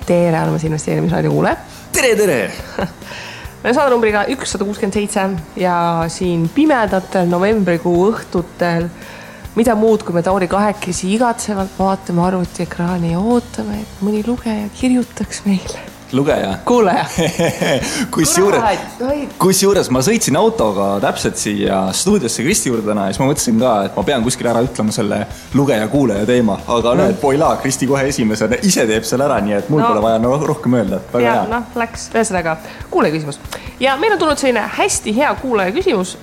Tere, oleme investeerimisraadio kuule. Tere! Me saada numbriga 167 ja siin pimedatel novembrikuu õhtutel mida muud, kui me Tauri kahekesi igatsevalt vaatame arvutiekraani ja ootame, et mõni lugeja kirjutaks meile. Lugeja? Kuuleja. Kusjuures ma sõitsin autoga täpselt siia stuudiosse Kristi juurde täna ja siis ma mõtlesin ka, et ma pean kuskil ära ütlema selle lugeja-kuuleja teema, aga näed, poila, Kristi kohe esimesena ise teeb selle ära, nii et mul pole vaja rohkem öelda. Ja, läks ühesõnaga kuulaja küsimus. Ja meil on tulnud selline hästi hea kuulaja küsimus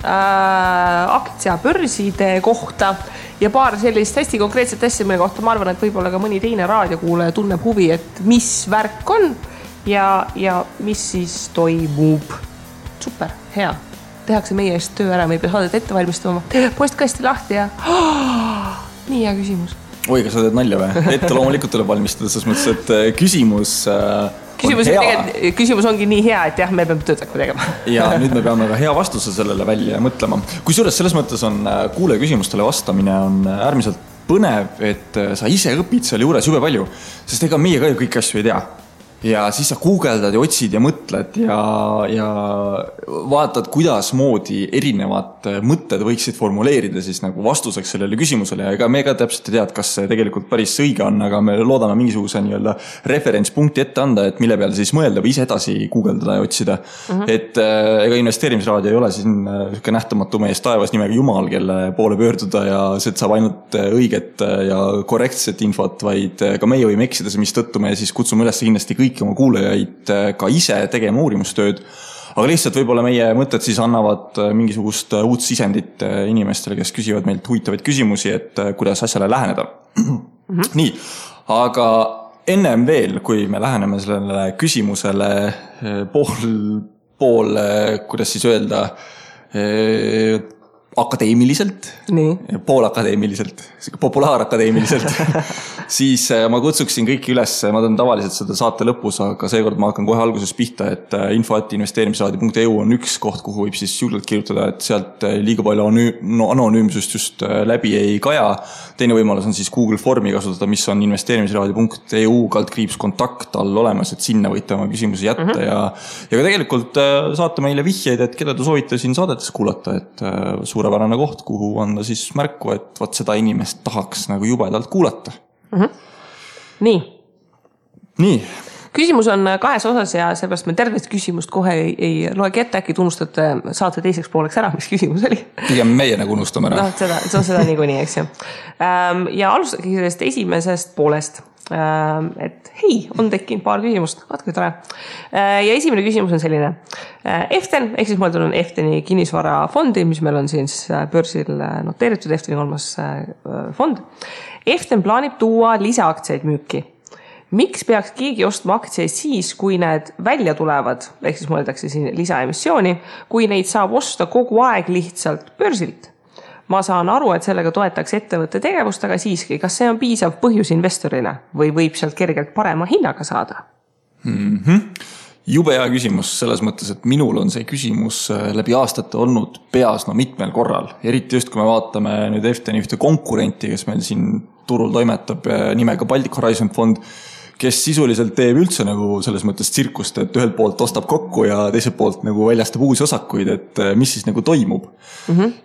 aktsiabörside kohta ja paar sellist hästi konkreetset asja, mille kohta ma arvan, et võib-olla ka mõni teine raadiokuulaja tunneb huvi, et mis värk on ja mis siis toimub. Super, hea. Tehakse meie eest töö ära, me ei pea saadet ette valmistama. Postkasti lahti ja nii hea küsimus. Oi, kas sa teed nalja või? Ette loomulikult tuleb valmistada, selles mõttes, et küsimus ongi nii hea, et jah, me peame töötakku tegema. Ja nüüd me peame ka hea vastuse sellele välja mõtlema. Kusjuures selles mõttes on kuule küsimustele vastamine on äärmiselt põnev, et sa ise õpid seal juures jube palju, sest ega meie ka ju kõik asju ei tea. Ja siis sa guugeldad ja otsid ja mõtled ja vaatad, kuidas moodi erinevad mõtted võiksid formuleerida siis nagu vastuseks sellele küsimusele. Ja ega me ka täpselt ei tead, kas see tegelikult päris õige on, aga me loodame mingisuguse nii-öelda referentspunkti ette anda, et mille peale siis mõelda või ise edasi guugeldada ja otsida. Et ega investeerimisraadio ei ole siin nähtamatu mees taevas nimega Jumal, kelle poole pöörduda ja see saab ainult õiget ja korrektset infot, vaid ka meie võime eksida, mis tõttu me siis kutsume üles kindlasti kõiki oma kuulajaid ka ise tegema uurimustööd, aga lihtsalt võib-olla meie mõtted siis annavad mingisugust uut sisendit inimestele, kes küsivad meilt huvitavaid küsimusi, et kuidas asjale läheneda. Nii, aga ennem veel, kui me läheneme sellele küsimusele pool kuidas siis öelda, akadeemiliselt, poolakadeemiliselt, populaarakadeemiliselt, siis ma kutsuksin kõiki üles, ma teen tavaliselt seda saate lõpus, aga seekord ma hakkan kohe alguses pihta, et info@investeerimisraadio.eu on üks koht, kuhu võib siis julgelt kirjutada, et sealt liiga palju anonüümsust just läbi ei kaja. Teine võimalus on siis Google Formi kasutada, mis on investeerimisraadio.eu /kontakt all olemas, et sinna võite oma küsimusi jätta ja ka tegelikult saate meile vihjeid, et keda te soovite siin saadetes kuulata, et suurepärane koht, kuhu anda siis märku, et võt seda inimest tahaks nagu jubedalt kuulata. Nii. Küsimus on kahes osas ja seepärast me tervest küsimust kohe ei loegi ette, äkki tunnustate saate teiseks pooleks ära, mis küsimus oli. Pigem meie nagu unustame ära. Seda niikuinii, eks ju. Ja alustagi sellest esimesest poolest, et hei, on tekkinud paar küsimust, vaatke tore. Ja esimene küsimus on selline. Eften, ehk siis mõeldud on Efteni kinnisvarafondi, mis meil on siin börsil noteeritud, Efteni 3. fond. Eften plaanib tuua lisaaktsiaid müüki. Miks peaks keegi ostma aktsiaid siis, kui need välja tulevad, ehk siis mõeldakse siin lisaemissiooni, kui neid saab osta kogu aeg lihtsalt börsilt? Ma saan aru, et sellega toetaks ettevõtte tegevust, aga siiski, kas see on piisav põhjus investorile või võib sealt kergelt parema hinnaga saada? Jube hea küsimus selles mõttes, et minul on see küsimus läbi aastate olnud peas mitmel korral. Eriti just, kui me vaatame nüüd Efteni ühte konkurenti, kes meil siin turul toimetab nimega Baltic Horizon fond, kes sisuliselt teeb üldse nagu selles mõttes tsirkust, et ühelt poolt ostab kokku ja teiselt poolt nagu väljastab uusi osakuid, et mis siis nagu toimub.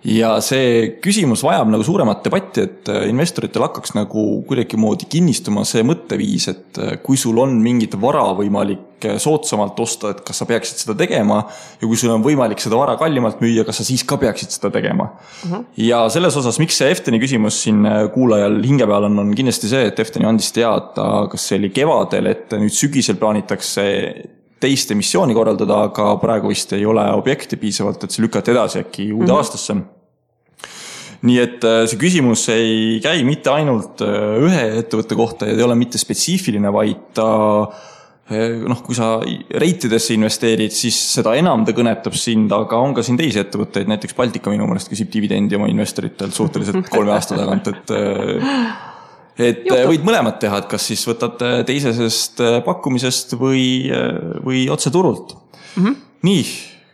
Ja see küsimus vajab nagu suuremat debatti, et investoritel hakkaks nagu kuidagi moodi kinnistuma see mõtteviis, et kui sul on mingit vara võimalik soodsamalt osta, et kas sa peaksid seda tegema ja kui sul on võimalik seda vara kallimalt müüa, kas sa siis ka peaksid seda tegema. Ja selles osas, miks see Efteni küsimus siin kuulajal hinge peal on kindlasti see, et Efteni andis teada, kas see oli kevadel, et nüüd sügisel plaanitakse teist emissiooni korraldada, aga praegu vist ei ole objekti piisavalt, et see lükati edasi äkki uude aastasse. Nii et see küsimus ei käi mitte ainult ühe ettevõtte kohta ja ei ole mitte spetsiifiline, vaid ta kui sa reitidesse investeerid, siis seda enam ta kõnetab sind, aga on ka siin teisi ettevõtteid, näiteks Baltika minu mõelest küsib dividendi oma investoritelt suhteliselt 3 aasta tagant, et võid mõlemad teha, et kas siis võtad teisesest pakkumisest või otse turult. Nii,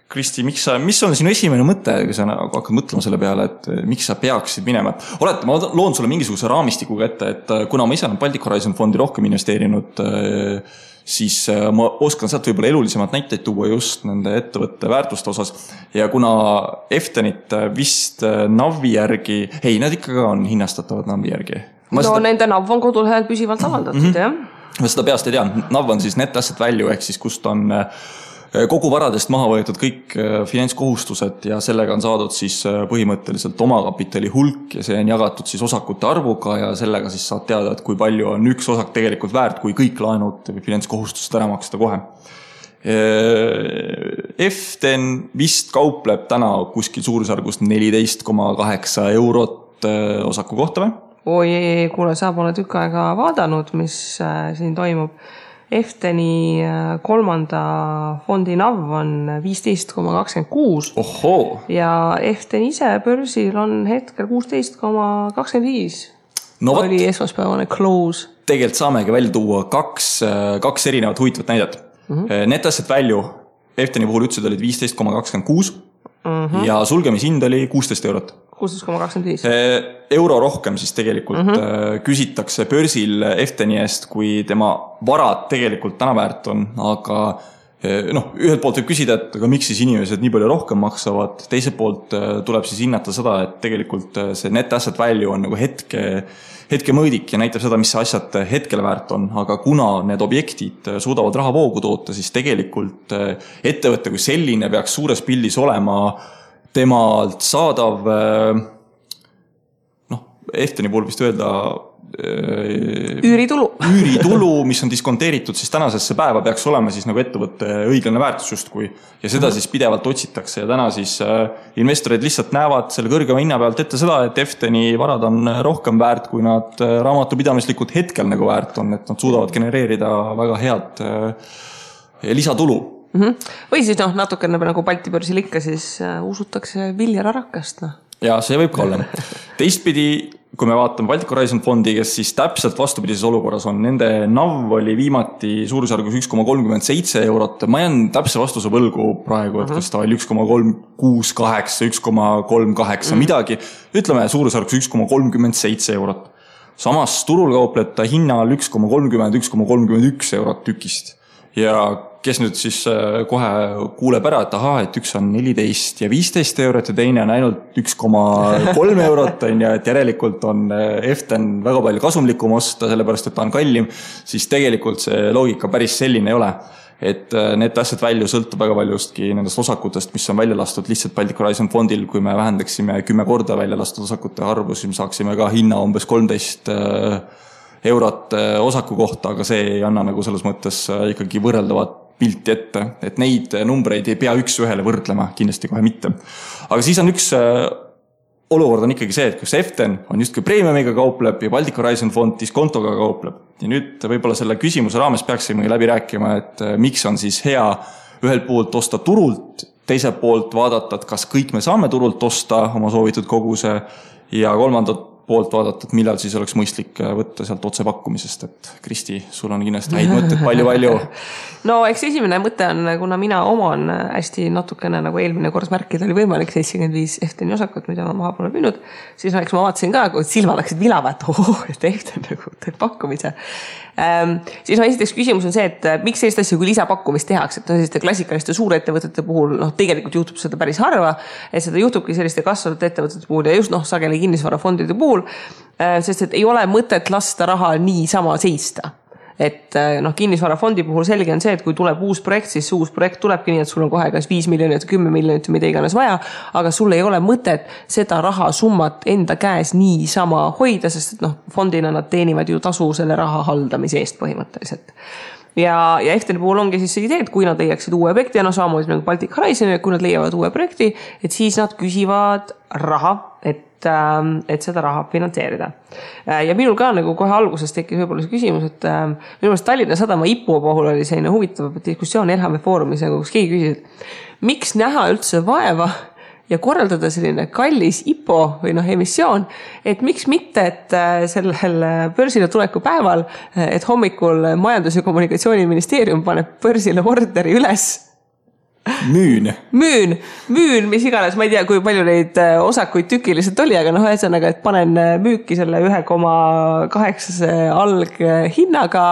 Kristi, mis on sinu esimene mõte, kui sa hakkad mõtlema selle peale, et miks sa peaksid minema? Olete, ma loon sulle mingisuguse raamistikuga ette, et kuna ma ise olen Baltic Horizon fondi rohkem investeerinud, siis ma oskan sealt võib-olla elulisemad näiteid tuua just nende ettevõtte väärtuste osas. Ja kuna Eftenit vist NAV-i järgi, nad ikkagi on hinnastatavad NAV-i järgi. Nende NAV on kodulehel püsivalt avaldatud, jah. Ma seda peast ei tea. NAV on siis net asset value ehk siis kust on kogu varadest maha võetud kõik finantskohustused ja sellega on saadud siis põhimõtteliselt omakapitali hulk ja see on jagatud siis osakute arvuga ja sellega siis saad teada, et kui palju on üks osak tegelikult väärt, kui kõik laenud või finantskohustused ära maksta kohe. Eften vist kaupleb täna kuskil suurusjärgus 14,8 eurot osaku kohta või? Oi, kuule, sa pole tükk aega vaadanud, mis siin toimub. Efteni kolmanda fondi NAV on 15,26. Ohoo. Ja Eften ise börsil on hetkel 16,25. No oli esmaspäevane close. Tegelikult saamegi välja tuua kaks erinevat huvitavat näidet. Net asset value Efteni puhul ütlesid olid 15,26 ja sulgemishind oli 16 eurot. 16,25. Euro rohkem siis tegelikult küsitakse börsil Efteni eest, kui tema varad tegelikult täna väärt on, aga ühelt poolt võib küsida, et aga miks siis inimesed nii palju rohkem maksavad, teiselt poolt tuleb siis hinnata seda, et tegelikult see net asset value on nagu hetke mõõdik ja näitab seda, mis see asjad hetkel väärt on, aga kuna need objektid suudavad raha voogu toota, siis tegelikult ettevõtte kui selline peaks suures pildis olema temalt saadav, Efteni puhul vist öelda üüritulu, mis on diskonteeritud siis tänasesse päeva, peaks olema siis nagu ettevõtte õiglane väärtus justkui ja seda siis pidevalt otsitakse ja täna siis investorid lihtsalt näevad selle kõrgema hinna pealt ette seda, et Efteni varad on rohkem väärt, kui nad raamatupidamislikult hetkel nagu väärt on, et nad suudavad genereerida väga head lisatulu. Või siis natukene nagu Balti börsil ikka, siis usutakse Viljar Arakast. Ja see võib ka olla. Teistpidi, kui me vaatame Baltic Horizon fondi, kes siis täpselt vastupidises olukorras on, nende NAV oli viimati suurusjärgus 1,37 eurot. Ma jään täpse vastuse võlgu praegu, et kas ta oli 1,368, 1,38 midagi. Ütleme suurusjärgus 1,37 eurot. Samas turul kaupleb ta hinnal 1,30, 1,31 eurot tükist. Ja kes nüüd siis kohe kuuleb ära, et et üks on 14 ja 15 eurot ja teine on ainult 1,3 eurot ja et järelikult on Eften väga palju kasumlikum osta, sellepärast et ta on kallim, siis tegelikult see loogika päris selline ei ole. Et net asset value sõltub väga paljustki nendest osakutest, mis on välja lastud lihtsalt Baltic Horizon fondil, kui me vähendaksime 10 korda välja lastud osakute arvu, siis me saaksime ka hinna umbes 13 eurot osaku kohta, aga see ei anna nagu selles mõttes ikkagi võrreldavat pilti ette, et neid numbreid ei pea üks ühele võrdlema, kindlasti kohe mitte. Aga siis on üks olukord on ikkagi see, et kus Eften on justkui premiumiga kaupleb ja Baltic Horizon fond diskontoga kaupleb. Ja nüüd võib-olla selle küsimuse raames peaksime läbi rääkima, et miks on siis hea ühelt poolt osta turult, teiselt poolt vaadata, et kas kõik me saame turult osta oma soovitud koguse ja kolmandat poolt vaadata, et millal siis oleks mõistlik võtta sealt otse pakkumisest, et Kristi, sul on kindlasti häid mõtteid palju. No eks esimene mõte on, kuna mina oman hästi natukene nagu eelmine kord märkida oli võimalik 75 Efteni osakut, mida ma maha pole müünud, siis eks ma vaatasin ka, kui silmad läksid vilava, et Eften nagu teeb pakkumise. Siis esiteks küsimus on see, et miks sellist asja kui lisapakkumist tehakse, et selliste klassikaliste suurettevõtete puhul tegelikult juhtub seda päris harva, et seda juhtubki selliste kasvavate ettevõtete puhul ja just sageli kinnisvarafondide puhul, sest et ei ole mõtet lasta raha nii sama seista. Et kinnisvarafondi puhul selge on see, et kui tuleb uus projekt, siis uus projekt tulebki nii, et sul on kohe kas 5 miljonit, 10 miljonit, mida iganes vaja, aga sul ei ole mõtet seda rahasummat enda käes nii sama hoida, sest et fondina nad teenivad ju tasu selle raha haldamise eest põhimõtteliselt. Ja Efteni puhul ongi siis see idee, et kui nad leiaksid uue objekti, samamoodi nagu Baltic Horizon, kui nad leiavad uue projekti, et siis nad küsivad raha, et seda raha finantseerida. Ja minul ka nagu kohe alguses tekkis võib-olla see küsimus, et minu meelest Tallinna Sadama IPO puhul oli selline huvitav diskussioon Elhame Foorumis, kus keegi küsis, et miks näha üldse vaeva ja korraldada selline kallis IPO või emissioon, et miks mitte, et sellel börsile tuleku päeval, et hommikul Majandus- ja Kommunikatsiooniministeerium paneb börsile orderi üles Müün, mis iganes, ma ei tea, kui palju neid osakuid tükiliselt oli, aga et panen müüki selle 1,8 alghinnaga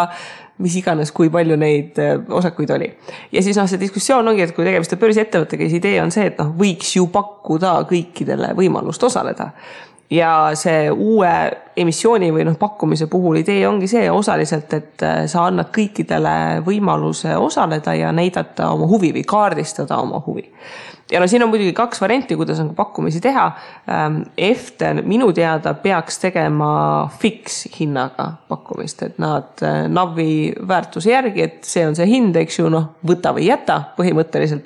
mis iganes, kui palju neid osakuid oli. Ja siis see diskussioon ongi, et kui tegemist on börsiettevõttega, siis idee on see, et võiks ju pakkuda kõikidele võimalust osaleda. Ja see uue emissiooni või pakkumise puhul idee ongi see osaliselt, et sa annad kõikidele võimaluse osaleda ja näidata oma huvi või kaardistada oma huvi. Ja siin on muidugi 2 varianti, kuidas on pakkumisi teha. Eften minu teada peaks tegema fix hinnaga pakkumist, et nad navi väärtuse järgi, et see on see hind, eks ju, võta või jäta põhimõtteliselt.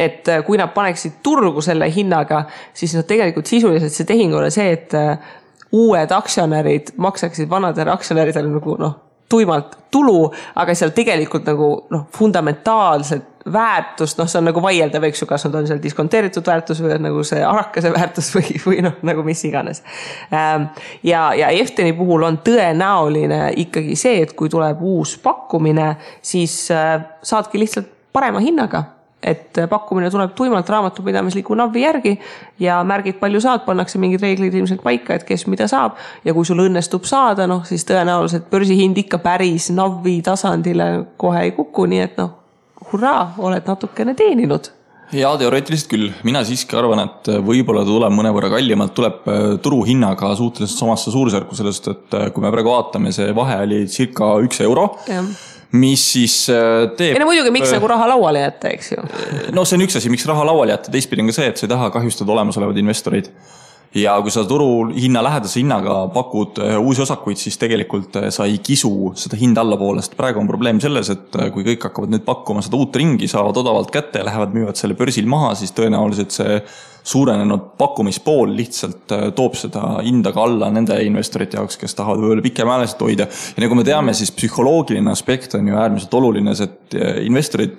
Et kui nad paneksid turgu selle hinnaga, siis nad tegelikult sisuliselt see tehing ole see, et uued aktsionärid maksaksid vanadele aktsionäridele tuimalt tulu, aga seal tegelikult fundamentaalselt väärtust, see on vaieldav, eks ju, kas nad on seal diskonteeritud väärtus või see arakase väärtus või mis iganes. Ja Efteni puhul on tõenäoline ikkagi see, et kui tuleb uus pakkumine, siis saadki lihtsalt parema hinnaga. Et pakkumine tuleb tuimalt raamatupidamisliku navi järgi ja märgid palju saad, pannakse mingid reeglid ilmselt paika, et kes mida saab. Ja kui sul õnnestub saada, siis tõenäoliselt börsihind ikka päris navi tasandile kohe ei kuku, nii et hurraa, oled natukene teeninud. Ja teoreetiliselt küll. Mina siiski arvan, et võib-olla tuleb mõnevõrra kallimalt, tuleb turuhinnaga suhteliselt samasse suursärku sellest, et kui me praegu vaatame, see vahe oli circa 1 euro. Ja. Mis siis teeb... muidugi, miks raha lauale jätta, eks ju? See on üks asi, miks raha lauale jätta. Teistpidi on ka see, et sa ei taha kahjustada olemasolevad investorid. Ja kui sa turu hinna lähedase hinnaga pakud uusi osakuid, siis tegelikult sa ei kisu seda hinda allapoolest. Praegu on probleem selles, et kui kõik hakkavad nüüd pakkuma seda uut ringi, saavad odavalt kätte ja lähevad müüvad selle börsil maha, siis tõenäoliselt see suurenenud pakkumispool lihtsalt toob seda hinda ka alla nende investorite jaoks, kes tahavad võib-olla pikemääliselt hoida. Ja nagu me teame, siis psühholoogiline aspekt on ju äärmiselt oluline, et investorid,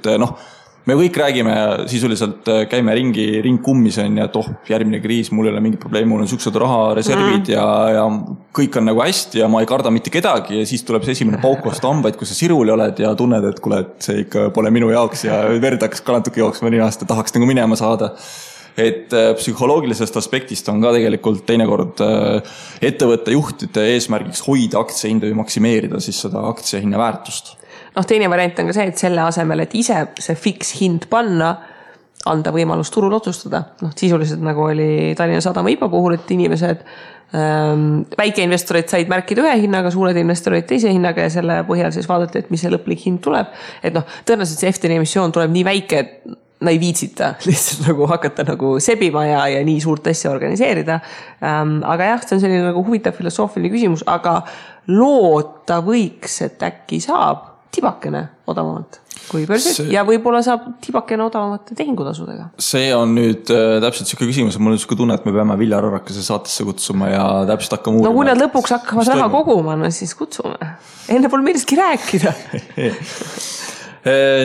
me kõik räägime sisuliselt, käime ring kummis on ja et järgmine kriis, mul ei ole mingi probleem, mul on siuksed rahareservid ja kõik on hästi ja ma ei karda mitte kedagi ja siis tuleb see esimene pauk vastu hambaid, kui sa siruli oled ja tunned, et kuule, et see ikka pole minu jaoks ja verd hakkas ka natuke jooksma nii aasta, tahaks minema saada. Et psühholoogilisest aspektist on ka tegelikult teinekord ettevõtte juhtide eesmärgiks hoida aktsiahinda või maksimeerida siis seda aktsiahinna väärtust. Teine variant on ka see, et selle asemel, et ise see fix hind panna, anda võimalus turul otsustada. Sisuliselt nagu oli Tallinna Sadama IPA puhul, et inimesed, väikeinvestorid said märkida ühe hinnaga, suured investorid teise hinnaga ja selle põhjal siis vaadati, et mis see lõplik hind tuleb. Et tõenäoliselt see Efteni emissioon tuleb nii väike, et ei viitsita lihtsalt hakata sebima ja nii suurt asja organiseerida. Aga jah, see on selline huvitav filosoofiline küsimus, aga loota võiks, et äkki saab tibakene odavamalt kui börsid ja võib-olla saab tibakene odavamate tehingutasudega. See on nüüd täpselt selline küsimus, mul on selline tunne, et me peame Viljar Arrakase saatesse kutsuma ja täpselt hakkama uurima. Kui nad lõpuks hakkavad raha koguma, siis kutsume. Enne pole millestki rääkida.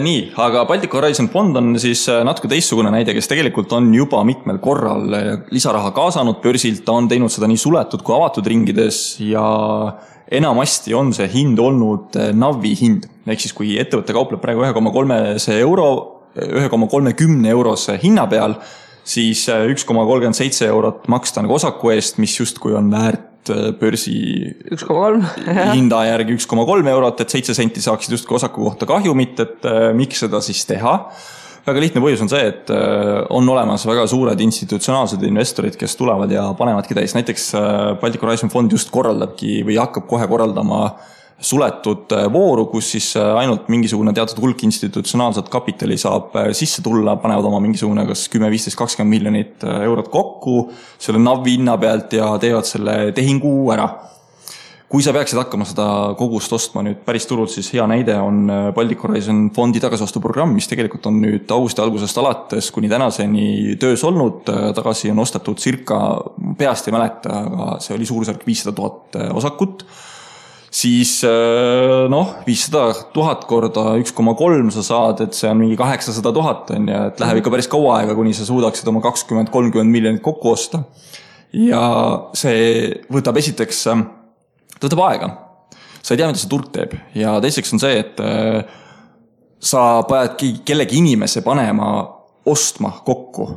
Nii, aga Baltic Horizon fond on siis natuke teistsugune näide, kes tegelikult on juba mitmel korral lisaraha kaasanud börsilt, ta on teinud seda nii suletud kui avatud ringides ja enamasti on see hind olnud navi hind. Ehk siis kui ettevõtte kaupleb praegu 1,30 eurose hinna peal, siis 1,37 eurot maksta osaku eest, mis justkui on väärt börsi 1,3 hinda järgi 1,3 eurot, et 7 senti saaksid justkui osaku kohta kahjumit, et miks seda siis teha. Väga lihtne põhjus on see, et on olemas väga suured institutsionaalsed investorid, kes tulevad ja panevadki täis. Näiteks Baltic Horizon fond just korraldabki või hakkab kohe korraldama suletud vooru, kus siis ainult mingisugune teatud hulk institutsionaalset kapitali saab sisse tulla, panevad oma mingisugune kas 10, 15, 20 miljonit eurot kokku selle navi hinna pealt ja teevad selle tehingu ära. Kui sa peaksid hakkama seda kogust ostma nüüd päris turult, siis hea näide on Baltic Horizon fondi tagasivastuprogramm, mis tegelikult on nüüd augusti algusest alates kuni tänaseni töös olnud. Tagasi on ostetud circa, peast ei mäleta, aga see oli suurusjärk 500 000 osakut. Siis 500 000 korda 1,3 sa saad, et see on mingi 800 000 on ja et läheb ikka päris kaua aega, kuni sa suudaksid oma 20-30 miljonit kokku osta. Ja see võtab esiteks, võtab aega. Sa ei tea, mida see turg teeb. Ja teiseks on see, et sa pead kellegi inimese panema ostma kokku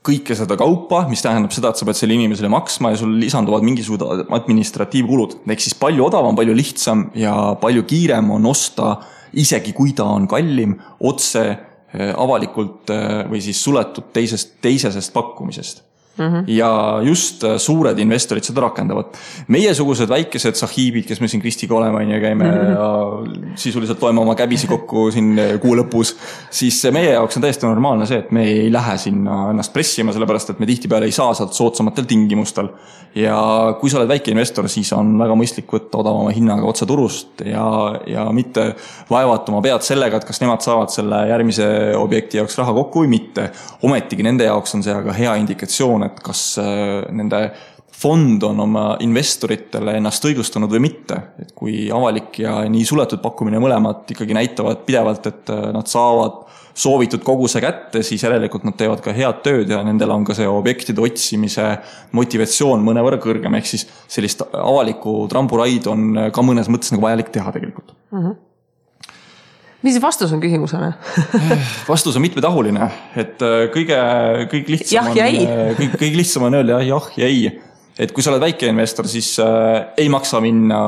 kõike seda kaupa, mis tähendab seda, et sa pead selle inimesele maksma ja sul lisanduvad mingisugused administratiivkulud. Ehk siis palju odavam, palju lihtsam ja palju kiirem on osta, isegi kui ta on kallim, otse avalikult või siis suletud teisesest pakkumisest. Ja just suured investorid seda rakendavad. Meiesugused väikesed sahiibid, kes me siin Kristiga oleme ja käime ja sisuliselt loeme oma käbisi kokku siin kuu lõpus, siis meie jaoks on täiesti normaalne see, et me ei lähe sinna ennast pressima, sellepärast et me tihtipeale ei saa sealt soodsamatel tingimustel. Ja kui sa oled väike investor, siis on väga mõistlik võtta odavama hinnaga otse turust ja mitte vaevatuma pead sellega, et kas nemad saavad selle järgmise objekti jaoks raha kokku või mitte. Ometigi nende jaoks on see aga hea indikatsioon, et kas nende fond on oma investoritele ennast õigustanud või mitte. Et kui avalik ja nii suletud pakkumine mõlemad ikkagi näitavad pidevalt, et nad saavad soovitud koguse kätte, siis järelikult nad teevad ka head tööd ja nendel on ka see objektide otsimise motivatsioon mõnevõrra kõrgem. Ehk siis sellist avalikku tramburaidu on ka mõnes mõttes nagu vajalik teha tegelikult. Mis vastus on küsimusele? Vastus on mitmetahuline, et kõige lihtsam on öelda jah ja ei. Et kui sa oled väike investor, siis ei maksa minna,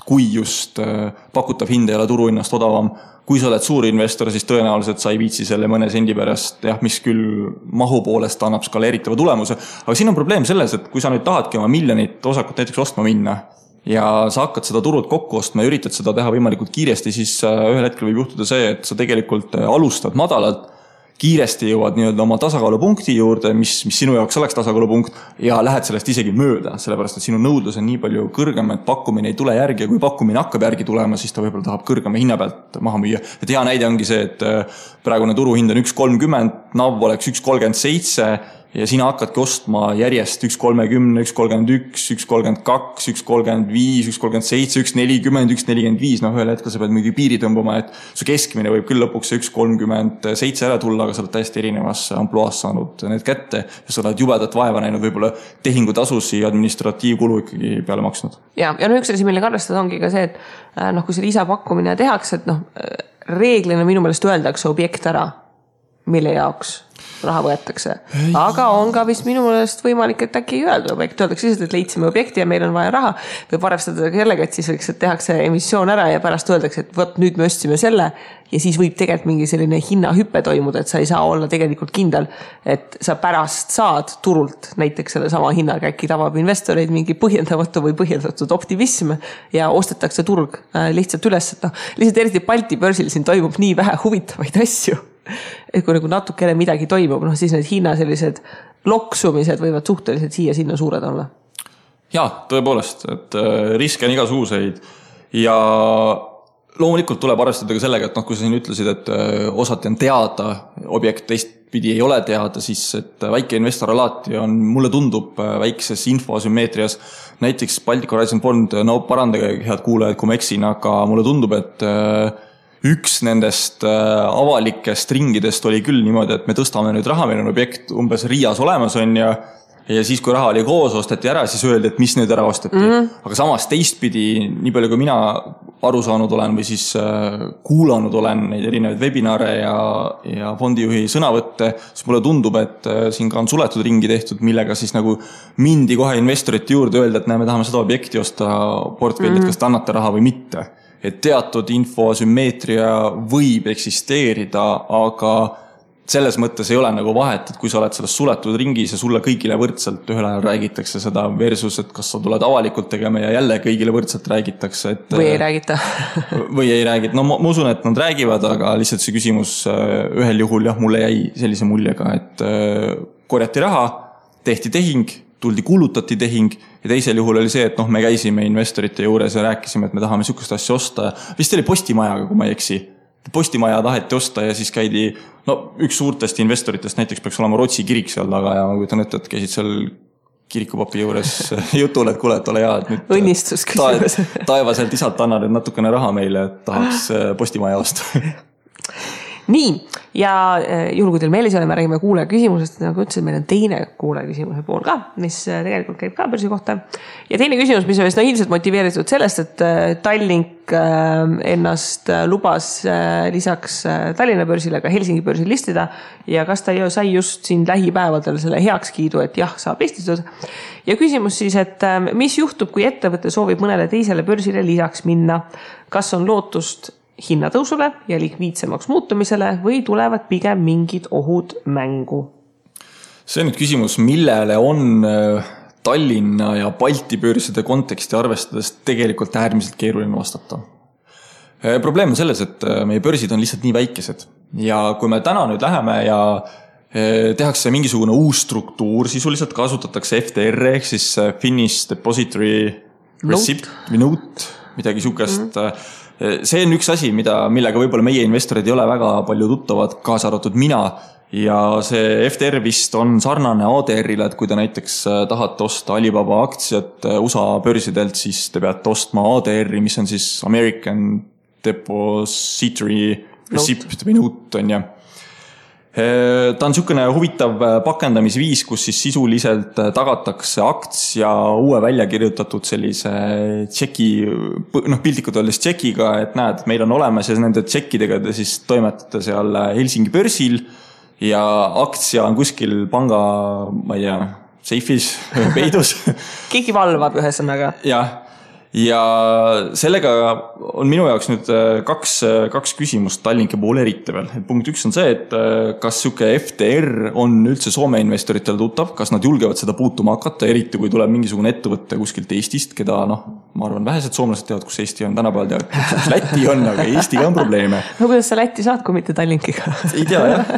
kui just pakutav hind ei ole turuhinnast odavam. Kui sa oled suur investor, siis tõenäoliselt sa ei viitsi selle mõne sendi pärast, mis küll mahu poolest annab skaleeritava tulemuse. Aga siin on probleem selles, et kui sa nüüd tahadki oma miljonit osakut näiteks ostma minna ja sa hakkad seda turult kokku ostma ja üritad seda teha võimalikult kiiresti, siis ühel hetkel võib juhtuda see, et sa tegelikult alustad madalalt, kiiresti jõuad nii-öelda oma tasakaalupunkti juurde, mis sinu jaoks oleks tasakaalupunkt ja lähed sellest isegi mööda, sellepärast et sinu nõudlus on nii palju kõrgem, et pakkumine ei tule järgi ja kui pakkumine hakkab järgi tulema, siis ta võib-olla tahab kõrgema hinna pealt maha müüa. Et hea näide ongi see, et praegune turuhind on 1.30, NAV oleks 1.37 ja sina hakkadki ostma järjest 1.30, 1.31, 1.32, 1.35, 1.37, 1.40, 1.45. Ühel hetkel sa pead mingi piiri tõmbama, et su keskmine võib küll lõpuks 1.37 ära tulla, aga sa oled täiesti erinevas ampluaas saanud need kätte ja sa oled jubedat vaeva näinud, võib-olla tehingutasusi ja administratiivkulu ikkagi peale maksnud. Ja üks asi, millega arvestada ongi ka see, et kui see lisapakkumine tehakse, et reeglina minu meelest öeldakse objekt ära, mille jaoks raha võetakse. Aga on ka vist minu meelest võimalik, et äkki ei öelda objekt. Öeldakse lihtsalt, et leidsime objekti ja meil on vaja raha. Võib arvestada sellega, et siis võiks, et tehakse emissioon ära ja pärast öeldakse, et võt, nüüd me ostsime selle ja siis võib tegelikult mingi selline hinnahüppe toimuda, et sa ei saa olla tegelikult kindel, et sa pärast saad turult näiteks selle sama hinnaga, äkki tabab investoreid mingi põhjendamatu või põhjendatud optimism ja ostetakse turg lihtsalt üles. Lihtsalt eriti Balti börsil siin toimub nii vähe huvitavaid asju. Et kui nagu natukene midagi toimub, siis need hinna sellised loksumised võivad suhteliselt siia sinna suured olla. Jaa, tõepoolest, et riske on igasuguseid ja loomulikult tuleb arvestada ka sellega, et kui sa siin ütlesid, et osati on teada, objekt teistpidi ei ole teada, siis et väike investor alati on, mulle tundub väikses infoasümmeetrias, näiteks Baltic Horizon Fond, parandage head kuulajad, kui ma eksin, aga mulle tundub, et üks nendest avalikest ringidest oli küll niimoodi, et me tõstame nüüd raha, meil on objekt umbes Riias olemas on ja siis kui raha oli koos, osteti ära, siis öeldi, et mis nüüd ära osteti. Aga samas teistpidi, nii palju kui mina aru saanud olen või siis kuulanud olen neid erinevaid webinare ja fondijuhi sõnavõtte, siis mulle tundub, et siin ka on suletud ringi tehtud, millega siis nagu mindi kohe investorite juurde öelda, et me tahame seda objekti osta portfellit, kas te annate raha või mitte. Et teatud infoasümmeetria võib eksisteerida, aga selles mõttes ei ole nagu vahet, et kui sa oled selles suletud ringis ja sulle kõigile võrdselt ühel ajal räägitakse seda versus, et kas sa tuled avalikult tegema ja jälle kõigile võrdselt räägitakse. Et, või ei räägita. Või ei räägita. No ma usun, et nad räägivad, aga lihtsalt see küsimus ühel juhul mulle jäi sellise muljega, et korjati raha, tehti tehing, tuldi kuulutati tehing ja teisel juhul oli see, et me käisime investorite juures ja rääkisime, et me tahame sihukest asja osta. Vist oli Postimajaga, kui ma ei eksi. Postimaja taheti osta ja siis käidi, üks suurtest investoritest näiteks peaks olema Rootsi kirik seal taga ja ma kujutan ette, et käisid seal kirikupapi juures jutul, et kuule, et ole hea, et nüüd õnnistus küsimus. Taevaselt isalt anna nüüd natukene raha meile, et tahaks Postimaja osta. nii, ja juhul kui teil meeles ei ole, me räägime kuulaja küsimusest, nagu ütlesin, meil on teine kuulaja küsimuse pool ka, mis tegelikult käib ka börsi kohta. Ja teine küsimus, mis on vist ilmselt motiveeritud sellest, et Tallink ennast lubas lisaks Tallinna börsile ka Helsingi börsil listida ja kas ta sai just siin lähipäevadel selle heakskiidu, et jah, saab listitud. Ja küsimus siis, et mis juhtub, kui ettevõte soovib mõnele teisele börsile lisaks minna? Kas on lootust hinnatõusule ja likviidsemaks muutumisele või tulevad pigem mingid ohud mängu? See on nüüd küsimus, millele on Tallinna ja Balti börside konteksti arvestades tegelikult äärmiselt keeruline vastata. Probleem on selles, et meie börsid on lihtsalt nii väikesed ja kui me täna nüüd läheme ja tehakse mingisugune uus struktuur, sisuliselt kasutatakse FDR ehk siis Finnish Depository Receipt või Note, midagi sukest. See on üks asi, millega võib-olla meie investorid ei ole väga palju tuttavad, kaasa arvatud mina. Ja see FDR vist on sarnane ADR-ile, et kui te näiteks tahate osta Alibaba aktsiat USA börsidelt, siis te peate ostma ADR-i, mis on siis American Depository Receipt või Note on ja. Ta on niisugune huvitav pakendamisviis, kus siis sisuliselt tagatakse aktsia uue välja kirjutatud sellise tšeki, piltlikult öeldes tšekiga, et näed, meil on olemas ja nende tšekkidega te siis toimetate seal Helsingi börsil ja aktsia on kuskil panga, ma ei tea, seifis, peidus. Keegi valvab ühesõnaga. Ja sellega on minu jaoks nüüd kaks küsimust Tallinki poole eriti veel. Punkt 1 on see, et kas siuke FDR on üldse Soome investoritele tuttav, kas nad julgevad seda puutuma hakata, eriti kui tuleb mingisugune ettevõtte kuskilt Eestist, keda ma arvan vähesed soomlased teavad, kus Eesti on tänapäeval teavad, kus Läti on, aga Eestiga on probleeme. No kuidas sa Läti saad, kui mitte Tallinkiga? Ei tea, jah.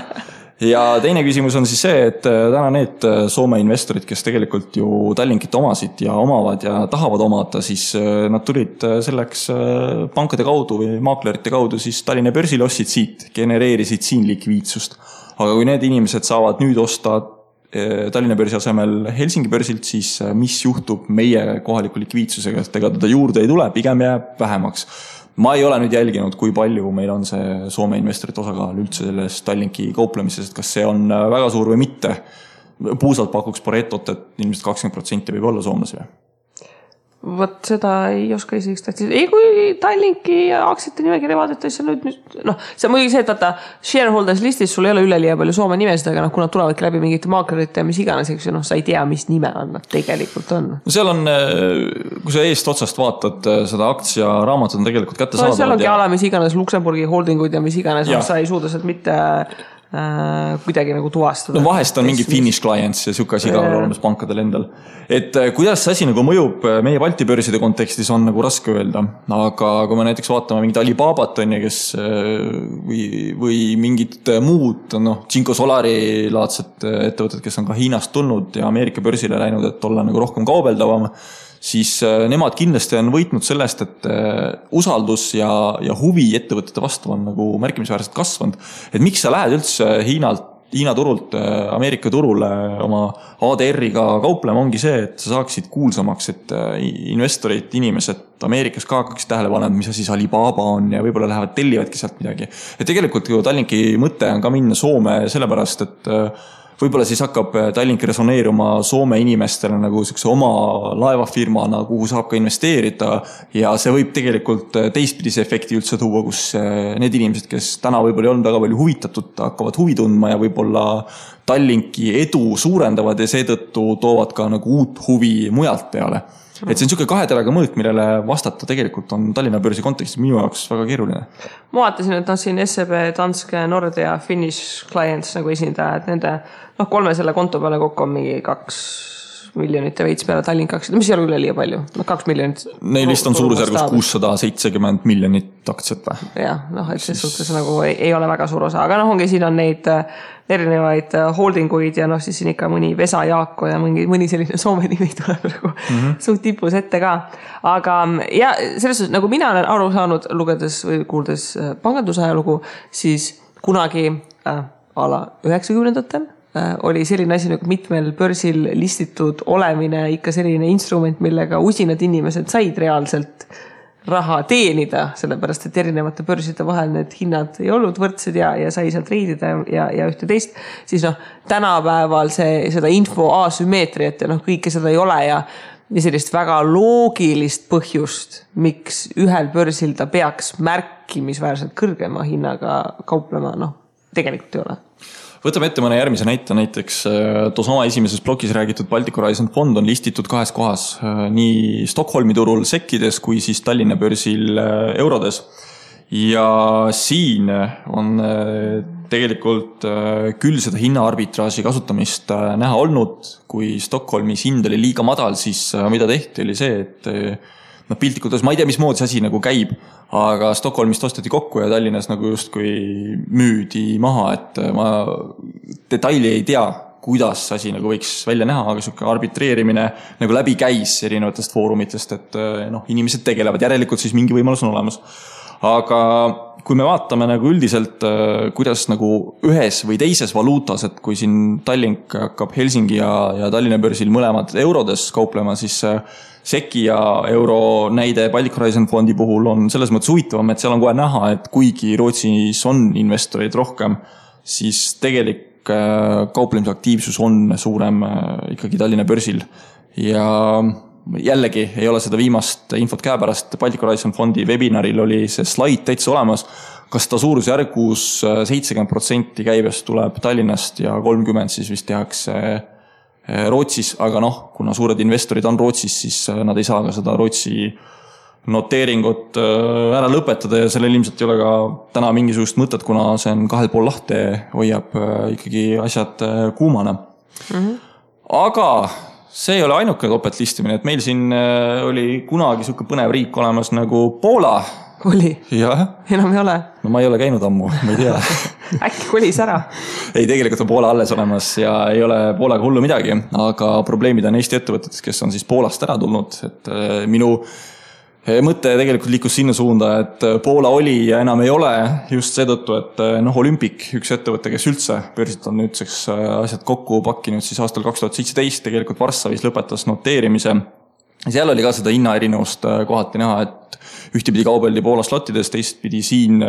Ja teine küsimus on siis see, et täna need Soome investorid, kes tegelikult ju Tallinkit omasid ja omavad ja tahavad omada, siis nad tulid selleks pankade kaudu või maaklerite kaudu siis Tallinna börsil ostsid siit, genereerisid siin likviidsust. Aga kui need inimesed saavad nüüd osta Tallinna börsi asemel Helsingi börsilt, siis mis juhtub meie kohaliku likviidsusega, et ega teda juurde ei tule, pigem jääb vähemaks. Ma ei ole nüüd jälginud, kui palju meil on see Soome investorite osakaal üldse selles Tallinki kauplemises, et kas see on väga suur või mitte. Puusalt pakuks Paretot, et ilmselt 20% võib olla soomlasi või? Vot seda ei oska isegi statistika. Ei, kui Tallinki aktsiate nimekirja vaadata, siis nüüd, see on muidugi see, et vaata, shareholders listis sul ei ole üleliia palju Soome nimesid, aga kui nad tulevadki läbi mingite maaklerite ja mis iganes, eks sa ei tea, mis nime on nad tegelikult on. Seal on, kui sa eest otsast vaatad, seda aktsia raamatut on tegelikult kätte saada. Seal ongi ala, mis iganes Luksemburgi holdinguid ja mis iganes, sa ei suuda sealt mitte kuidagi nagu tuvastada. No vahest on mingi Finnish clients ja siuke asi ka olemas pankadel endal. Et kuidas see asi nagu mõjub meie Balti börside kontekstis on nagu raske öelda, aga kui me näiteks vaatame mingit Alibabat on ja kes või mingit muud, Cinco Solari laadset ettevõtted, kes on ka Hiinast tulnud ja Ameerika börsile läinud, et olla nagu rohkem kaubeldavam, siis nemad kindlasti on võitnud sellest, et usaldus ja huvi ettevõtete vastu on nagu märkimisväärselt kasvanud. Et miks sa lähed üldse Hiina turult Ameerika turule oma ADR-iga kauplema ongi see, et sa saaksid kuulsamaks, et investorid, inimesed Ameerikas ka hakkaks tähele panema, mis asi Alibaba on ja võib-olla lähevad tellivadki sealt midagi. Et tegelikult Tallinki mõte on ka minna Soome sellepärast, et võib-olla siis hakkab Tallink resoneeruma Soome inimestele nagu oma laevafirmana, kuhu saab ka investeerida ja see võib tegelikult teistpidise efekti üldse tuua, kus need inimesed, kes täna võib-olla ei olnud väga palju huvitatud, hakkavad huvi tundma ja võib-olla Tallinki edu suurendavad ja seetõttu toovad ka nagu uut huvi mujalt peale. Et see on niisugune kaheteraga mõõt, millele vastata tegelikult on Tallinna börsi kontekstis minu jaoks väga keeruline. Ma vaatasin, et siin SEB, Danske, Nordea, Finnish Clients nagu esindajad, nende 3 selle konto peale kokku on mingi 2 miljonit ja veits peale Tallink aktsiat, mis ei ole üle liiga palju, 2 miljonit. Neil vist on suurusjärgus 670 miljonit aktsiat või? Jah, et see suhtes nagu ei ole väga suur osa, aga ongi siin on neid erinevaid holdinguid ja siis siin ikka mõni Vesa Jaako ja mõni selline Soome nimi tuleb nagu suht tipus ette ka. Aga ja selles suhtes, nagu mina olen aru saanud lugedes või kuuldes pangandusajalugu, siis kunagi ala 90-ndatel oli selline asi nagu mitmel börsil listitud olemine ikka selline instrument, millega usinad inimesed said reaalselt raha teenida, sellepärast et erinevate börside vahel need hinnad ei olnud võrdsed ja sai sealt reidida ja ühte teist, siis tänapäeval seda info asümmeetriat ja kõike seda ei ole ja sellist väga loogilist põhjust, miks ühel börsil ta peaks märkimisväärselt kõrgema hinnaga kauplema, tegelikult ei ole. Võtame ette mõne järgmise näite, näiteks toosama esimeses blogis räägitud Baltic Horizon fond on listitud 2 kohas, nii Stockholmi turul sekkides kui siis Tallinna börsil eurodes. Ja siin on tegelikult küll seda hinnaarbitraaži kasutamist näha olnud, kui Stockholmis hind oli liiga madal, siis mida tehti oli see, et piltlikult, ma ei tea, mismoodi see asi nagu käib, aga Stockholmist osteti kokku ja Tallinnas nagu justkui müüdi maha, et ma detaili ei tea, kuidas asi nagu võiks välja näha, aga selline arbitreerimine nagu läbi käis erinevatest foorumitest, et inimesed tegelevad, järelikult siis mingi võimalus on olemas. Aga kui me vaatame nagu üldiselt, kuidas nagu ühes või teises valuutas, et kui siin Tallink hakkab Helsingi ja Tallinna börsil mõlemad eurodes kauplema, siis Seki ja euro näide Baltic Horizon fondi puhul on selles mõttes huvitavam, et seal on kohe näha, et kuigi Rootsis on investoreid rohkem, siis tegelik kauplemisaktiivsus on suurem ikkagi Tallinna börsil. Ja jällegi ei ole seda viimast infot käepärast, Baltic Horizon fondi webinaril oli see slaid täitsa olemas, kas ta suurusjärgus 70% käibest tuleb Tallinnast ja 30% siis vist tehakse Rootsis, aga kuna suured investorid on Rootsis, siis nad ei saa ka seda Rootsi noteeringut ära lõpetada ja sellel ilmselt ei ole ka täna mingisugust mõtet, kuna see on 2,5 lahte, hoiab ikkagi asjad kuumana. Aga see ei ole ainuke topeltlistimine, et meil siin oli kunagi selline põnev riik olemas nagu Poola. Oli? Jah. Enam ei ole? No ma ei ole käinud ammu, ma ei tea. Äkki kolis ära? Ei, tegelikult on Poola alles olemas ja ei ole Poolaga hullu midagi, aga probleemid on Eesti ettevõtetes, kes on siis Poolast ära tulnud, et minu mõte tegelikult liikus sinna suunda, et Poola oli ja enam ei ole just seetõttu, et Olympic, üks ettevõte, kes üldse börsilt on nüüdseks asjad kokku pakkinud, siis aastal 2017 tegelikult Varssavis lõpetas noteerimise. Seal oli ka seda hinnaerinevust kohati näha, et ühtepidi kaubeldi Poola slottides, teistpidi siin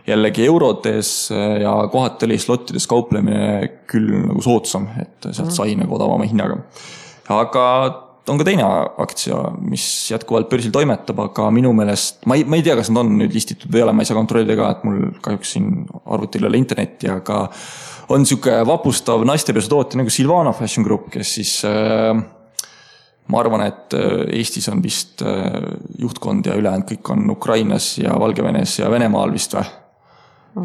jällegi eurodes ja kohati oli slottides kauplemine küll nagu soodsam, et sealt sai nagu odavama hinnaga. Aga on ka teine aktsia, mis jätkuvalt börsil toimetab, aga minu meelest, ma ei tea, kas nad on nüüd listitud või ei ole, ma ei saa kontrollida ka, et mul kahjuks siin arvutil ei ole internetti, aga on selline vapustav naistepesutootja nagu Silvana Fashion Group, kes siis ma arvan, et Eestis on vist juhtkond ja ülejäänud kõik on Ukrainas ja Valgevenes ja Venemaal vist või.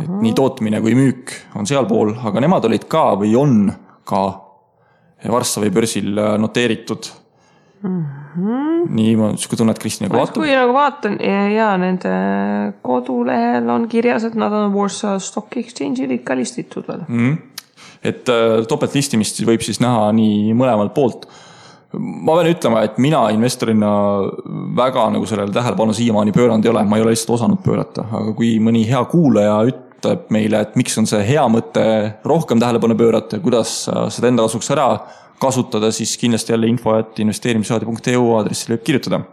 Et nii tootmine kui müük on seal pool, aga nemad olid ka või on ka Varssavi börsil noteeritud. Nii ma tunnet Kristina kui vaatab. Kui nagu vaatan ja nende kodulehel on kirjas, et nad on Warsaw Stock Exchange'il ikka listitud veel. Et topeltlistimist võib siis näha nii mõlemalt poolt. Ma pean ütlema, et mina investorina väga nagu sellele tähelepanu siiamaani pööranud ei ole, ma ei ole lihtsalt osanud pöörata, aga kui mõni hea kuulaja ütleb meile, et miks on see hea mõte rohkem tähelepanu pöörata ja kuidas seda enda kasuks ära kasutada, siis kindlasti jälle info@investeerimisradio.eu aadressile võib kirjutada.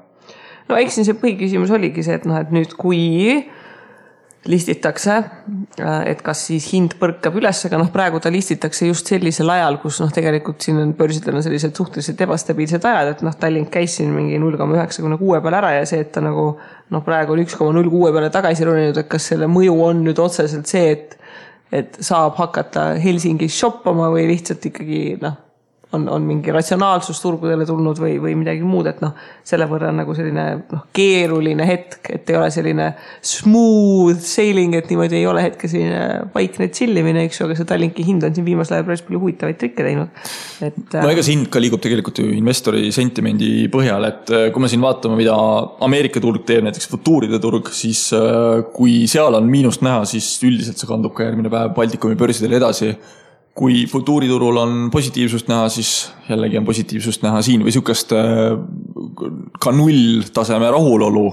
No eks see põhiküsimus oligi see, et nüüd kui listitakse, et kas siis hind põrkab üles, aga praegu ta listitakse just sellisel ajal, kus tegelikult siin on börsidel on sellised suhteliselt ebastabiilsed ajad, et Tallink käis siin mingi 0,96 peale ära ja see, et ta nagu praegu on 1,06 peale tagasi roninud, et kas selle mõju on nüüd otseselt see, et saab hakata Helsingis shoppama või lihtsalt ikkagi on mingi ratsionaalsus turgudele tulnud või midagi muud, et selle võrra on nagu selline keeruline hetk, et ei ole selline smooth sailing, et niimoodi ei ole hetke selline vaikne chillimine, eks ju, aga see Tallinki hind on siin viimasel ajal päris palju huvitavaid trikke teinud. No ega see hind ka liigub tegelikult ju investori sentimendi põhjal, et kui me siin vaatame, mida Ameerika turg teeb, näiteks futuuride turg, siis kui seal on miinust näha, siis üldiselt see kandub ka järgmine päev Baltikumi börsidele edasi. Kui futuuriturul on positiivsust näha, siis jällegi on positiivsust näha siin või sükast ka 0 taseme rahulolu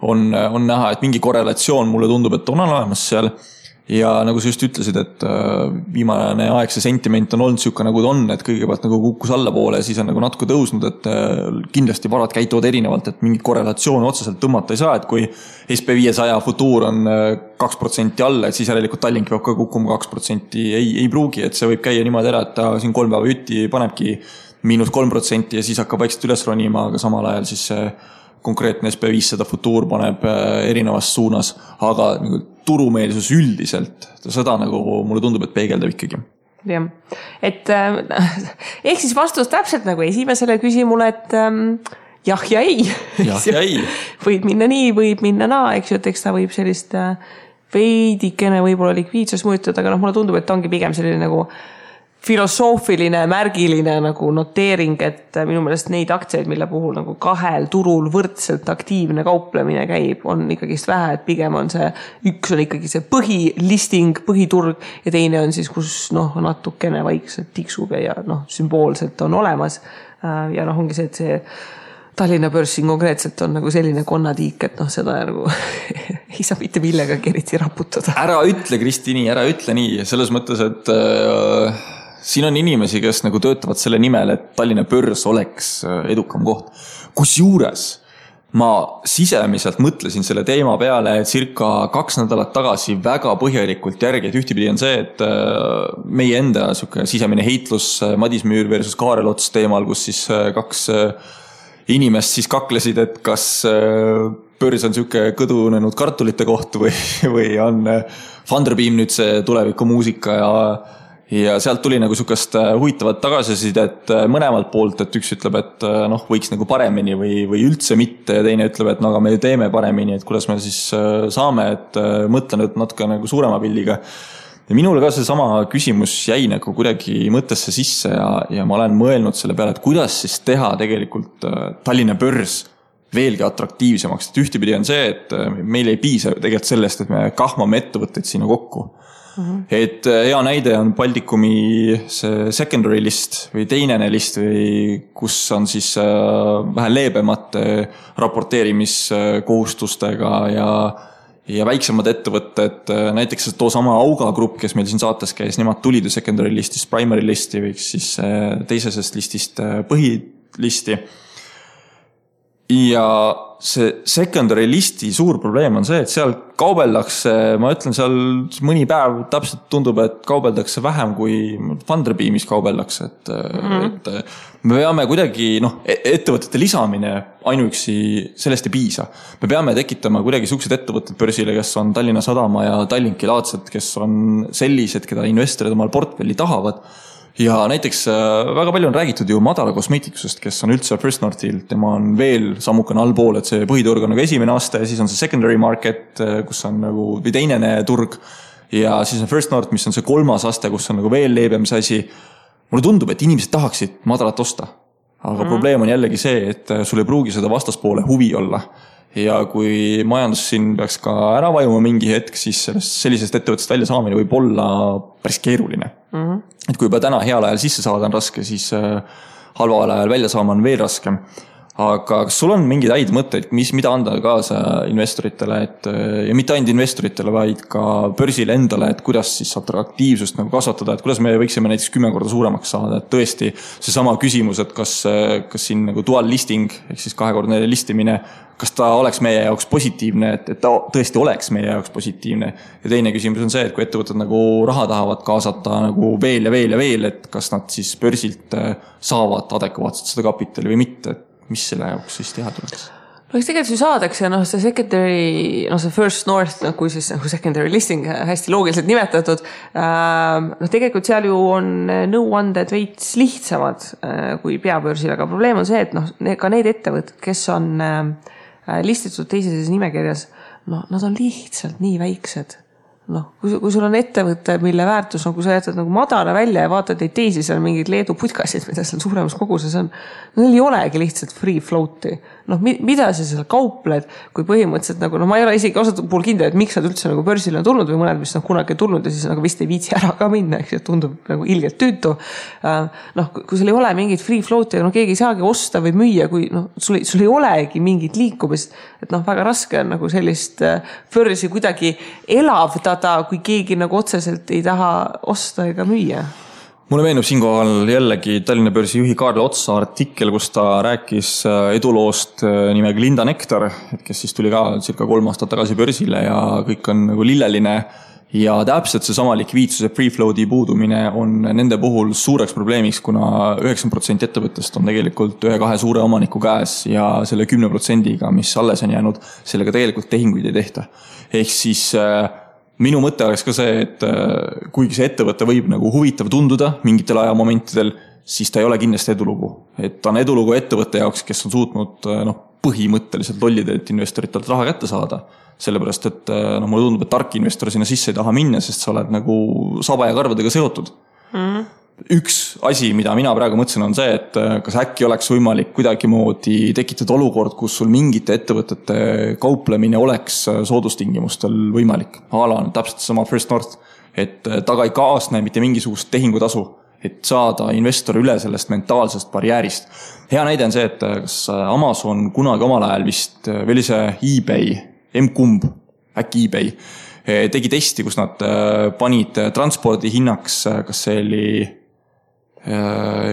on näha, et mingi korrelatsioon mulle tundub, et on olemas seal ja nagu sa just ütlesid, et viimane aeg see sentiment on olnud siuke nagu ta on, et kõigepealt nagu kukkus allapoole ja siis on nagu natuke tõusnud, et kindlasti varad käituvad erinevalt, et mingit korrelatsiooni otseselt tõmmata ei saa, et kui SP500 futuur on 2% alla, et siis järelikult Tallink peab ka kukkuma 2%, ei pruugi, et see võib käia niimoodi ära, et ta siin 3 päeva jutti panebki -3% ja siis hakkab vaikselt üles ronima, aga samal ajal siis see konkreetne SP500 futuur paneb erinevas suunas, aga nagu turumeelsus üldiselt, seda nagu mulle tundub, et peegeldab ikkagi. Jah, et ehk siis vastus täpselt nagu esimesele küsimule, et jah ja ei. Jah ja ei. Võib minna nii, võib minna naa, eks ju, et eks ta võib sellist veidikene võib-olla likviidsus mõjutada, aga mulle tundub, et ta ongi pigem selline nagu filosoofiline, märgiline nagu noteering, et minu meelest neid aktsiaid, mille puhul nagu kahel turul võrdselt aktiivne kauplemine käib, on ikkagist vähe, et pigem on see, üks on ikkagi see põhilisting, põhiturg ja teine on siis, kus natukene vaikselt tiksub ja sümboolselt on olemas. Ja ongi see, et see Tallinna börsin konkreetselt on nagu selline konnatiik, et seda nagu ei saa mitte millegagi eriti raputada. Ära ütle, Kristi, nii, ära ütle nii, selles mõttes, et siin on inimesi, kes nagu töötavad selle nimel, et Tallinna börs oleks edukam koht. Kusjuures ma sisemiselt mõtlesin selle teema peale circa 2 nädalat tagasi väga põhjalikult järgi, et ühtipidi on see, et meie enda sisemine heitlus Madis Müür versus Kaarel Ots teemal, kus siis 2 inimest siis kaklesid, et kas börs on siuke kõdunenud kartulite koht või on Funderbeam nüüd see tulevikumuusika ja sealt tuli nagu siukest huvitavat tagasisidet mõlemalt poolt, et üks ütleb, et võiks nagu paremini või üldse mitte ja teine ütleb, et aga me teeme paremini, et kuidas me siis saame, et mõtlen natuke nagu suurema pilliga. Ja minule ka see sama küsimus jäi nagu kuidagi mõttesse sisse ja ma olen mõelnud selle peale, et kuidas siis teha tegelikult Tallinna börs veelgi atraktiivsemaks. Et ühtipidi on see, et meil ei piisa tegelikult sellest, et me kahmame ettevõtteid sinna kokku. Et hea näide on Baltikumi see secondary list või teinene list, või kus on siis vähe leebemate raporteerimiskohustustega ja väiksemad ettevõtted, näiteks too sama Auga grupp, kes meil siin saates käis, nemad tulid secondary listist primary listi või siis teisesest listist põhilisti. Ja see secondary listi suur probleem on see, et seal kaubeldakse, ma ütlen seal mõni päev täpselt tundub, et kaubeldakse vähem kui Funderbeamis kaubeldakse, et me peame kuidagi, ettevõtete lisamine ainuüksi sellest ei piisa. Me peame tekitama kuidagi suksed ettevõtted börsile, kes on Tallinna Sadama ja Tallinki laadsed, kes on sellised, keda investorid omal portfelli tahavad. Ja näiteks väga palju on räägitud ju Madara kosmeetikusest, kes on üldse First Northil, tema on veel sammukene allpool, et see põhiturg on nagu esimene aste ja siis on see secondary market, kus on nagu või teinene turg ja siis on First North, mis on see 3. aste, kus on nagu veel leebem see asi. Mulle tundub, et inimesed tahaksid Madarat osta, aga probleem on jällegi see, et sul ei pruugi seda vastaspoole huvi olla. Ja kui majandus siin peaks ka ära vajuma mingi hetk, siis sellisest ettevõttest välja saamine võib olla päris keeruline. Et kui juba täna heal ajal sisse saada on raske, siis halval ajal välja saama on veel raskem. Aga kas sul on mingeid häid mõtteid, mida anda kaasa investoritele, ja mitte ainult investoritele, vaid ka börsile endale, et kuidas siis atraktiivsust nagu kasvatada, et kuidas me võiksime näiteks 10 korda suuremaks saada, et tõesti see sama küsimus, et kas siin nagu dual listing, ehk siis 2-kordne listimine, kas ta oleks meie jaoks positiivne, et ta tõesti oleks meie jaoks positiivne. Ja teine küsimus on see, et kui ettevõtted nagu raha tahavad kaasata nagu veel ja veel ja veel, et kas nad siis börsilt saavad adekvaatselt seda kapitali või mitte, mis selle jaoks siis teha tuleks? Eks tegelikult ju saadakse, see secondary, see First North, kui siis nagu secondary listing hästi loogiliselt nimetatud, tegelikult seal ju on nõuanded veits lihtsamad kui peabörsil, aga probleem on see, et ka need ettevõtted, kes on listitud teises nimekirjas, nad on lihtsalt nii väiksed. Kui sul on ettevõte, mille väärtus, kui sa jätad nagu Madara välja ja vaatad neid teisi, seal mingid Leedu putkasid, mida seal suuremas koguses on, neil ei olegi lihtsalt free float'i. Mida sa seal kaupled, kui põhimõtteliselt nagu, ma ei ole isegi osad puhul kindel, et miks nad üldse nagu börsile on tulnud või mõned, mis on kunagi tulnud ja siis nagu vist ei viitsi ära ka minna, eks tundub nagu ilgelt tüütu. Kui sul ei ole mingit free float'i, keegi ei saagi osta või müüa, kui sul ei olegi mingit liikumist, et väga raske on nagu sellist börsi kuidagi elavdada avaldada, kui keegi nagu otseselt ei taha osta ega müüa? Mulle meenub siinkohal jällegi Tallinna börsi juhi Kaarl Otsa artikkel, kus ta rääkis eduloost nimega Linda Nektar, kes siis tuli ka circa 3 aastat tagasi börsile ja kõik on nagu lilleline. Ja täpselt see sama likviidsuse free float'i puudumine on nende puhul suureks probleemiks, kuna 90% ettevõttest on tegelikult 1-2 suure omaniku käes ja selle 10%-ga, mis alles on jäänud, sellega tegelikult tehinguid ei tehta. Ehk siis minu mõte oleks ka see, et kuigi see ettevõte võib nagu huvitav tunduda mingitel ajamomentidel, siis ta ei ole kindlasti edulugu. Et ta on edulugu ettevõtte jaoks, kes on suutnud põhimõtteliselt lollidelt investoritelt raha kätte saada. Sellepärast, et mulle tundub, et tark investor sinna sisse ei taha minna, sest sa oled nagu saba ja karvadega seotud. Üks asi, mida mina praegu mõtlesin, on see, et kas äkki oleks võimalik kuidagi moodi tekitada olukord, kus sul mingite ettevõtete kauplemine oleks soodustingimustel võimalik. Ala on täpselt sama First North, et taga ei kaasne mitte mingisugust tehingutasu, et saada investor üle sellest mentaalsest barjäärist. Hea näide on see, et kas Amazon kunagi omal ajal vist veel see eBay, M-kumb, äkki eBay, tegi testi, kus nad panid transpordi hinnaks, kas see oli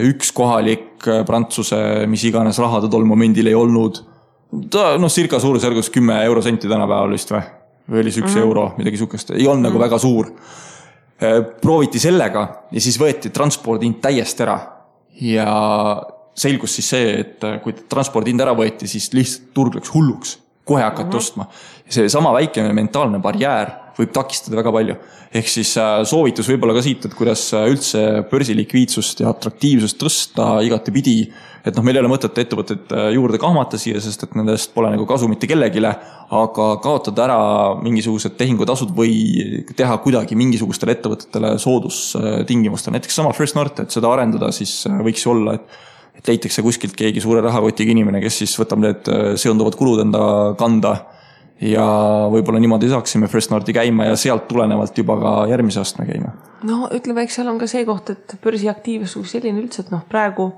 üks kohalik Prantsuse, mis iganes raha ta tol momendil ei olnud. Ta circa suurusjärgus 10 eurosenti tänapäeval vist või oli 1 euro, midagi sukest. Ei olnud nagu väga suur. Prooviti sellega ja siis võeti transpordihind täiesti ära. Ja selgus siis see, et kui transpordihind ära võeti, siis lihtsalt turg läks hulluks. Kohe hakati ostma. See sama väike mentaalne barjäär võib takistada väga palju. Ehk siis soovitus võib-olla ka siit, et kuidas üldse börsilikviidsust ja atraktiivsust tõsta igati pidi. Et meil ei ole mõtet ettevõtted juurde kahmata siia, sest et nendest pole nagu kasu mitte kellegile, aga kaotada ära mingisugused tehingutasud või teha kuidagi mingisugustele ettevõtetele soodustingimustel. Näiteks sama First North, et seda arendada, siis võiks olla, et leitakse kuskilt keegi suure rahakotiga inimene, kes siis võtab need seonduvad kulud enda kanda ja võib-olla niimoodi saaksime First Northi käima ja sealt tulenevalt juba ka järgmise astme käima. No ütleme, eks seal on ka see koht, et börsiaktiivsus selline üldse, et praegu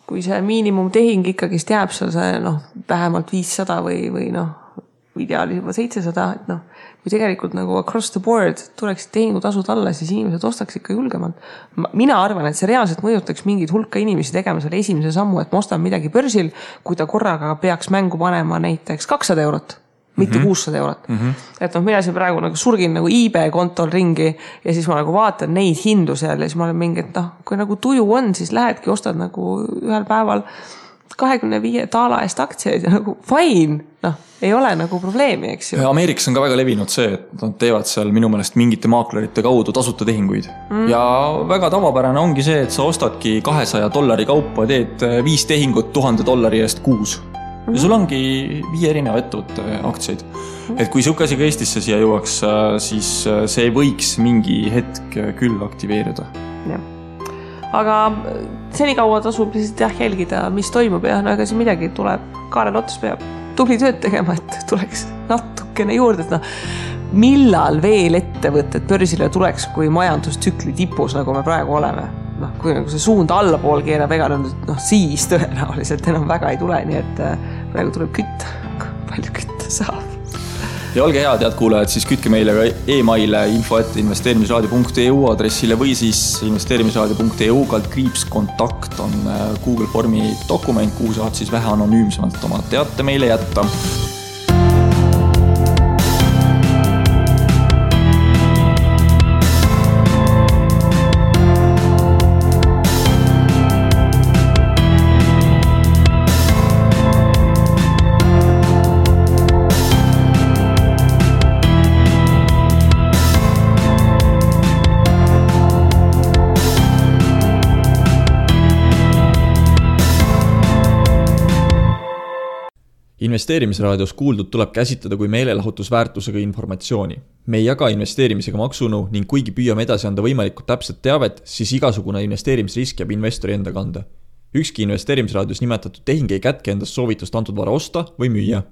kui see miinimumtehing ikkagist jääb seal see vähemalt 500 või ideaalis juba 700, et kui tegelikult nagu across the board tuleksid tehingutasud alla, siis inimesed ostaks ikka julgemalt. Mina arvan, et see reaalselt mõjutaks mingid hulka inimesi tegema selle esimese sammu, et ma ostan midagi börsil, kui ta korraga peaks mängu panema näiteks 200 eurot, mitte 600 eurot. Et mina siin praegu nagu surgin nagu eBay kontol ringi ja siis ma nagu vaatan neid hindu seal ja siis ma olen mingi, et kui nagu tuju on, siis lähedki ostad nagu ühel päeval 25 taala eest aktsiaid ja nagu fine, ei ole nagu probleemi, eks ju. Ameerikas on ka väga levinud see, et nad teevad seal minu meelest mingite maaklerite kaudu tasuta tehinguid. Ja väga tavapärane ongi see, et sa ostadki $200 kaupa, teed 5 tehingut $1000 eest kuus. Ja sul ongi 5 erineva ettevõtte aktsiaid. Et kui see asi ka Eestisse siia jõuaks, siis see võiks mingi hetk küll aktiveerida. Jah. Aga senikaua tasub lihtsalt jälgida, mis toimub ja ega siin midagi tuleb. Kaarel Ots peab tubli tööd tegema, et tuleks natukene juurde. Millal veel ettevõtted börsile tuleks, kui majandustsükli tipus, nagu me praegu oleme? Kui nagu see suund allapool keerab, ega siis tõenäoliselt enam väga ei tule, nii et praegu tuleb kütta, palju kütta saab. Ja olge head, head kuulajad, siis kütke meile ka e-maile info@investeerimisraadio.eu aadressile või siis investeerimisraadio.eu /kontakt on Google Formi dokument, kuhu saad siis vähe anonüümsemalt oma teate meile jätta. Investeerimisraadios kuuldud tuleb käsitleda kui meelelahutusväärtusega informatsiooni. Me ei jaga investeerimisega maksunu ning kuigi püüame edasi anda võimalikult täpset teavet, siis igasugune investeerimisrisk jääb investori enda kanda. Ükski investeerimisraadios nimetatud tehing ei kätke endast soovitust antud vara osta või müüa.